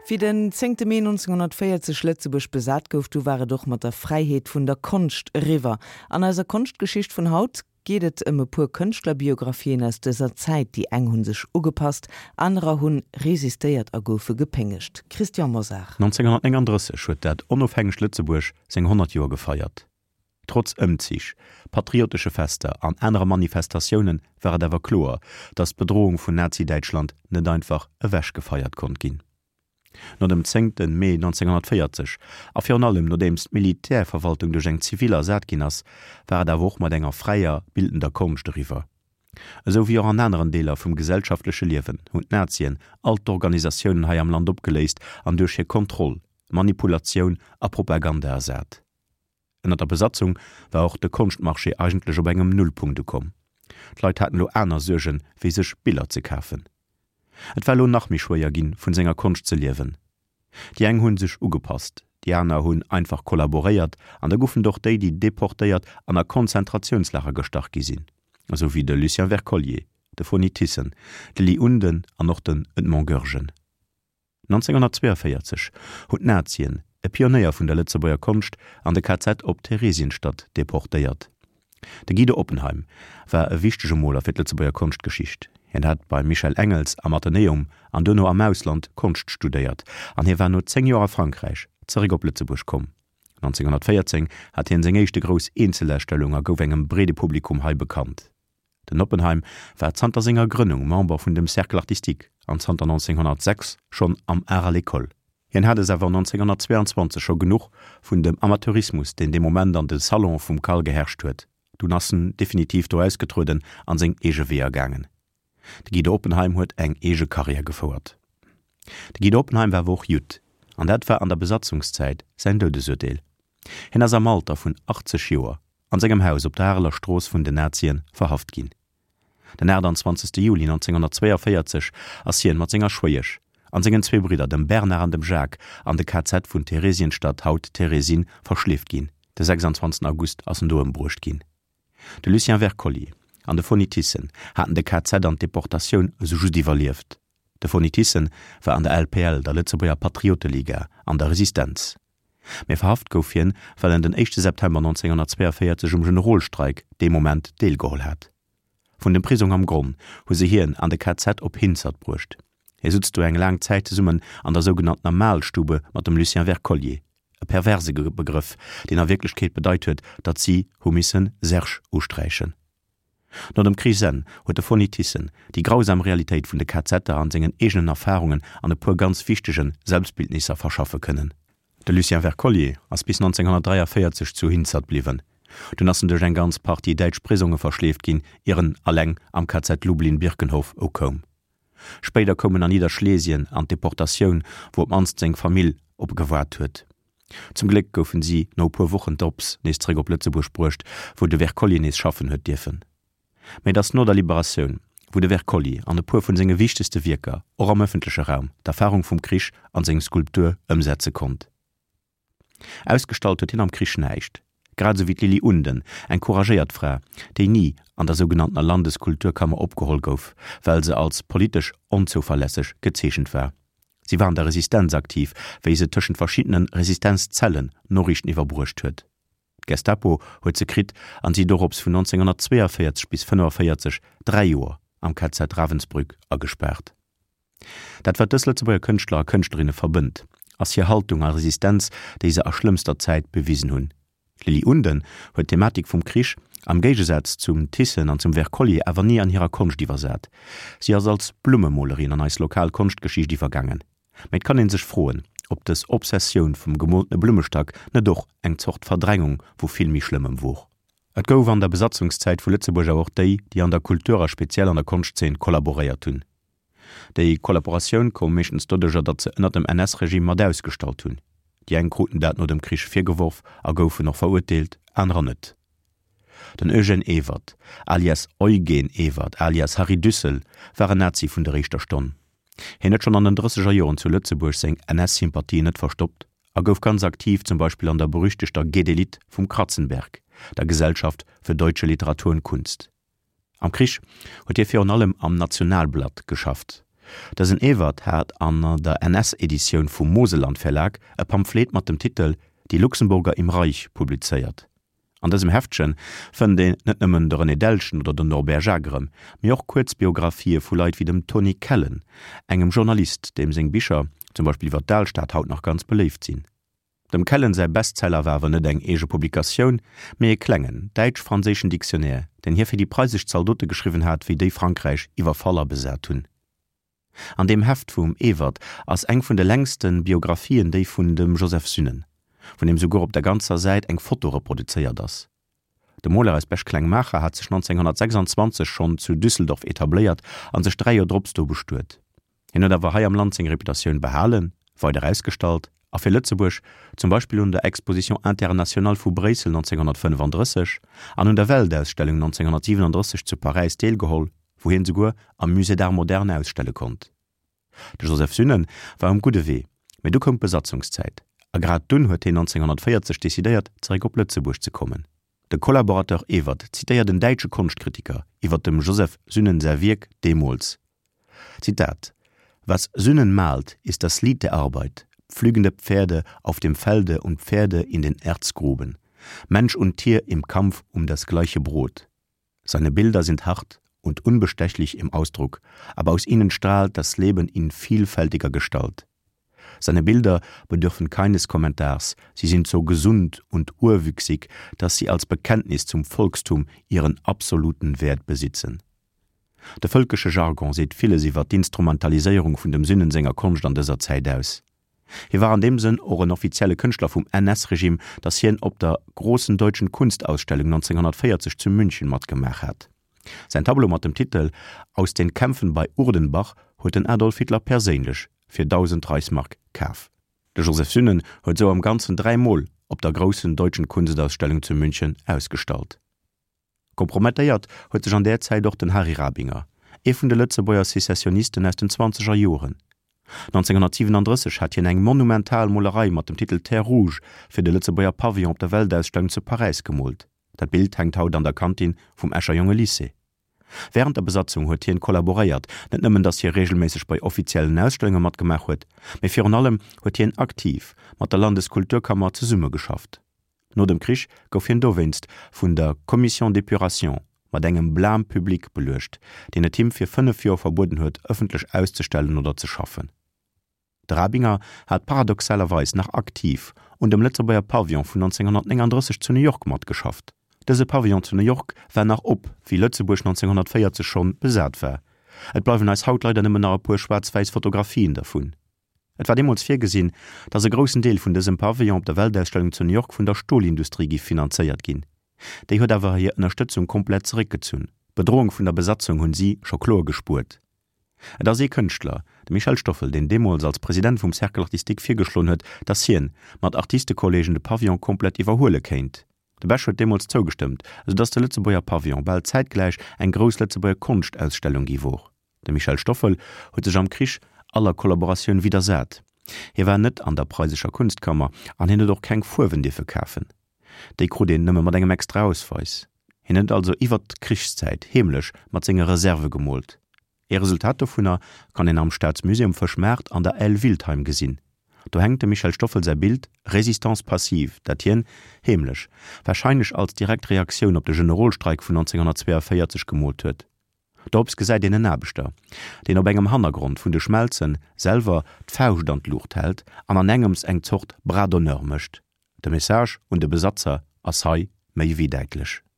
Wéi den zéngte Mee 1940 Lëtzebuerg besat gouf, du war et och mat der Fräiheet vun der Konscht eriwwer. An eiser Konschtgeschicht vun haut geet et ëm e puer Kënschtlerbiographien aus dëser Zäit. Déi eng hunn sech ugepasst, anerer hunn resistéiert a goufe gepéngegt. Christian Mosar. 1939 huet dat onofhängegt Lëtzebuerg seng 100 Joer gefeiert. Trotz Ëmzich, patriotesche Fester an anere Manifestatioune war et awer kloer, datt d'Bedroung vun Nazi-Däitschland net einfach ewechgefeiert konnt ginn. No dem zéngte Mee 1940 a virun allem nodeems d'Militärverwaltung duerch eng zivil ersat ginn ass, war et awer och mat enger fräier bildender Konscht eriwwer. Esou wéi och an aneren Deeler vum gesellschaftleche Liewen hunn d'Nazien all d'Organisatiounen hei am Land opgeléist an duerch hir Kontroll, Manipulatioun a Propaganda ersat. Ënner der Besatzung war och de Konschtmarché eigentlech op engem Nullpunkt ukomm. D'Leit haten elo aner Suergen, wéi sech Biller ze kafen. Et war elo nach méi schwéier ginn, vun senger Konscht ze liewen. Déi eng hunn sech ugepasst, déi aner hunn einfach kollaboréiert an da goufen et och déi, déi deportéiert an a Konzentratiounslager gestach gi sinn, esou wéi de Lucien Wercollier, de Foni Thyssen, de Ly Unden an och den Edmond Goergen. 1942 hunn d'Nazien e Pionéier vun der Lëtzebuerger Konscht an de KZ op Theresienstadt deportéiert. De Guido Oppenheim war e wichtege Moler fir d'Lëtzebuerger Konschtgeschicht. Hien hat beim Michel Engels am Athenäum an duerno am Ausland Konscht studéiert an hie war no 10 Joer a Frankräich zeréck op Lëtzebuerg komm. 1914 hat hien seng éischte grouss Eenzelausstellung a gouf engem breede Publikum hei bekannt. Den Oppenheim war zanter senger Grënnung Member vun dem Cercle artistique an zanter 1906 schonn am Art à l'école. Hien hat es awer 1922 scho genuch vun dem Amateurismus, deen dee Moment an de Salonë vum CAL geherrscht huet. Dunn ass en definitiv do ausgetrueden an seng eege Weeër gaangen. De Guido Oppenheim huet eng eege Karriär gefouert. De Guido Oppenheim war awer och Judd, an dat war an der Besatzungszäit säin Doudesurteel. Hien ass am Alter vun 80 Joer an sengem Haus op der Areler Strooss vun den Nazien verhaft ginn. Den 28. Juli 1942 ass hien mat senger Schwéiesch an sengen zwee Bridder, dem Bernard an dem Jacques, an de KZ vun Theresienstadt, haut Terezin, verschleeft ginn. De 26. August ass en do ëmbruecht ginn. De Lucien Wercollier an de Foni Thyssen haten de KZ an d'Deportatioun esou just iwwerlieft. De Foni Thyssen war an der LPL, der Lëtzebuerger Patrioteliga, an der Resistenz. Mee verhaft gouf hien, well en den éischte September 1942 um Generolstreik dee Moment deelgeholl hat. Vun dem Prisong am Gronn hu se hien an de KZ op Hinzert bruecht. Hie sutz do eng laang Zäit zesummen an der sougenanntener Mahlstube mat dem Lucien Wercollier, e perverse Begrëff, deen a Wierklechkeet bedeit huet, datt si hu missen Serge usträichen. No dem Krichsenn huet de Foni Thyssen déi grausam Realitéit vun de KZer an sengen eegenen Erfarungen an e puer ganz wichtege Selbstbildnisser verschaffe kënnen. De Lucien Wercollier ass bis 1943 zu Hinzert bliwwen. Dunn ass en duerch eng ganz Partie däitsch Prisonge verschleeft ginn, ier en alleng am KZ Lublin-Birkenhof ukoum. Spéider koum en an Nidderschlesien an d'Deportatioun, wou op d'mannst seng Famill op e gewaart huet. Zum Gléck goufen si no e puer Wochen drops nees zeréck op Lëtzebuerg bruecht, wou de Wercollier nees schaffen huet dierfen. Mä et ass no der Liberatioun, wou de Wercollier an e puer vun senge wichtegste Wierker och am ëffentleche Raum d'Erfarung vum Krich an seng Skulptur ëmsetze konnt. Ausgestallt huet hien am Krich näischt, grad esou wéi d'Lili Unden, eng couragéiert Fra, déi ni an der sougenanntener Landeskulturkammer opgeholl gouf, well se als politesch onzouverlässeg gezeechent war. Si war an der Resistenz aktiv, wéi se tëschent verschiddene Resistenzzellen Noriichten iwwerbruecht huet. D'Gestapo huet se kritt an si dorops vun 1942 bis 1945 dräi Joer am KZ Ravensbrück agespaart. Dat wat dës Lëtzebuerger Kënschtler a Kënschtlerinne verbënnt, ass hir Haltung a Resistenz, déi se a schlëmmster Zäit bewisen hunn. D'Lili Unden huet d'Thematik vum Krich, am Géigesaz zum Thyssen an zum Wercollier, awer ni an hirer Konscht iwwersat. Si ass als Blummemolerin an eis lokal Konschtgeschicht iwwergaangen. Mä et kann ee sech froen, ob dës Obsessioun vum gemoltene Blummestack net och eng Zort Verdrängung vu vill méi Schlëmmem wor. Et gouf an der Besatzungszäit vu Lëtzebuerg awer och déi, déi an der Kultur a speziell an der Konschtzeen kollaboréiert hunn. Déi Kollaboratioun koum meeschtens doduercher, datt se ënner dem NS-Regime mat ausgestallt hunn. Déi eng kruten dat no dem Krich virgeworf a goufen och verurteelt, anerer net. Den Eugène Ewert, alias Eugen Ewert, alias Harry Düssel, war en Nazi vun der éischter Stonn. Hien huet schonn an den drësseger Joren zu Lëtzebuerg seng NS-Sympathien net verstoppt a gouf ganz aktiv zum Beispill an der berüchtegter Gedelit vum Kratzenberg, der Gesellschaft für deutsche Literatur und Kunst. Am Krich huet hie virun allem am Nationalblatt geschafft. Dësen Ewert hat an der NS-Editioun vum Moselland Verlag e Pamphlet mat dem Titel Die Luxemburger im Reich publizéiert. An dësem Heftche fënnt een net nëmmen de René Delschen oder den Norbert Jacques erëm, mee och kuerz Biographië vu Leit wéi dem Tony Kellen, engem Journalist, deem seng Bicher, zum Beispill iwwer d'Alstad, haut nach ganz beléift sinn. Dem Kellen säi Bestseller war awer net eng eege Publikatioun, mee e klengen, däitsch-franséischen Dictionnaire, deen hie fir déi preisesch Zaldote geschriwwen hat, wéi déi Frankräich iwwerfall a besat hunn. An deem Heft vum Ewert ass eng vun de längste Biographien, déi vun dem Joseph Sünnen, vun deem souguer op der ganzer Säit eng Foto reproduzéiert ass. De Moler aus Bech-Klengmaacher hat sech 1926 schonn zu Düsseldorf etabléiert a sech 3 Joer drops do bestuet. Hien huet awer hei am Land seng Reputatioun behalen, weider ausgestallt a fir Lëtzebuerg zum Beispill un der Exposition internationale vu Bréissel 1935 an un der Weltausstellung 1937 zu Paräis deelgeholl, wou hien souguer am Musée d'Art moderne ausstelle konnt. De Joseph Sünnen war um gudde Wee, mee du koum d'Besatzungszäit a grad dunn huet hien 1940 decidéiert, zeréck op Lëtzebuerg ze kommen. De Collaborateur Ewert zitéiert en däitsche Konschtkritiker iwwer dem Joseph Sünnen säi Wierk deemools, Zitat, Was Sünnen malt, ist das Lied der Arbeit, pflügende Pferde auf dem Felde und Pferde in den Erzgruben, Mensch und Tier im Kampf um das gleiche Brot. Seine Bilder sind hart und unbestechlich im Ausdruck, aber aus ihnen strahlt das Leben in vielfältiger Gestalt. Seine Bilder bedürfen keines Kommentars, sie sind so gesund und urwüchsig, dass sie als Bekenntnis zum Volkstum ihren absoluten Wert besitzen. De vëlkesche Jargon seet villes iwwer d'Instrumentaliséierung vun dem Sünnen senger Konscht an dëser Zäit aus. Hie war an deem Sënn och en offizielle Kënschtler vum NS-Regime, datt hien op der Großen Deutschen Kunstausstellung 1940 zu München matgemaach hat. Säin Tableau mat dem Titel Aus den Kämpfen bei Urdenbach huet den Adolf Hitler perséinlech fir 1.000 Reichsmark kaf. De Joseph Sünnen huet sou am Ganzen 3 Mol op der Großen Deutschen Kunstausstellung zu München ausgestallt. Kompromettéiert huet sech an där Zäit och den Harry Rabinger, ee vun de Lëtzebuerger Secessionisten aus den zwanzeger Joren. 1937 hat hien eng monumental Molerei mat dem Titel Terre Rouge fir de Lëtzebuerger Pavillon op der Weltausstellung zu Paräis gemoolt. Dat Bild hänkt haut an der Kantin vum Escher Jongelycée. Wärend der Besatzung huet hien kollaboréiert, net nëmmen datt hie reegelméisseg bei offiziellen Ausstellunge matgemaach huet, mee virun allem huet hien aktiv mat der Landeskulturkammer zesummegeschafft. No dem Krich gouf hien dowéinst vun der Commission d'épuration mat engem Blâme public beluecht, deen et him fir 5 Joer verbueden huet, ëffentlech auszestellen oder ze schaffen. De Rabinger hat paradoxalerweis nach aktiv un dem Lëtzebuerger Pavillon vun 1939 zu New York matgeschafft. Dëse Pavillon zu New York war nach op, wéi Lëtzebuerg 1940 schonn besat war. Et bleiwen eis haut leider nëmmen nach e puer schwaarz-wäiss Fotografien dervun. Et war deemools virgesinn, datt e groussen Deel vun dësem Pavillon op der Weltausstellung zu New York vun der Stolindustrie giff finanzéiert ginn. Déi huet awer hir Ënnerstëtzung komplett zeréckgezunn. D'Bedroung vun der Besatzung hunn si scho kloer gespuert. Et ass ee Kënschtler, de Michel Stoffel, deen deemools als President vum Cercle artistique virgeschloen huet, datt hien mat Artistekolleegen de Pavillon komplett iwwerhuele kéint. De Bech huet deemools zougestëmmt, esou datt de Lëtzebuerger Pavillon bal zäitgläich eng grouss Lëtzebuerger Konschtausstellung gi wor. De Michel Stoffel huet sech am Krich aller Kollaboratioun widdersat. Hie war net an der preisescher Kunstkammer an hien huet och keng Fuerwen dierfe kafen. Déi krut een nëmme mat engem extra Ausweis. Hien huet also iwwert d'Krichszäit heemlech mat senge Reserve gemoolt. Ee Resultat dovunner kann een am Staatsmusée um Fëschmaart an der Aile Wiltheim gesinn. Do hänkt dem Michel Stoffel säi Bild Résistance passive, dat hien, heemlech, warscheinlech als direkt Reaktioun op de Generolstreik vun 1942 gemoolt huet. Dorops gesäit een en Aarbechter, deen op engem Hannergrond vun de Schmelzen selwer d'Fauscht an d'Luucht hält an an engems eng Zort Bras d'honneur mécht. De Message un de Besatzer ass hei méi wéi däitlech.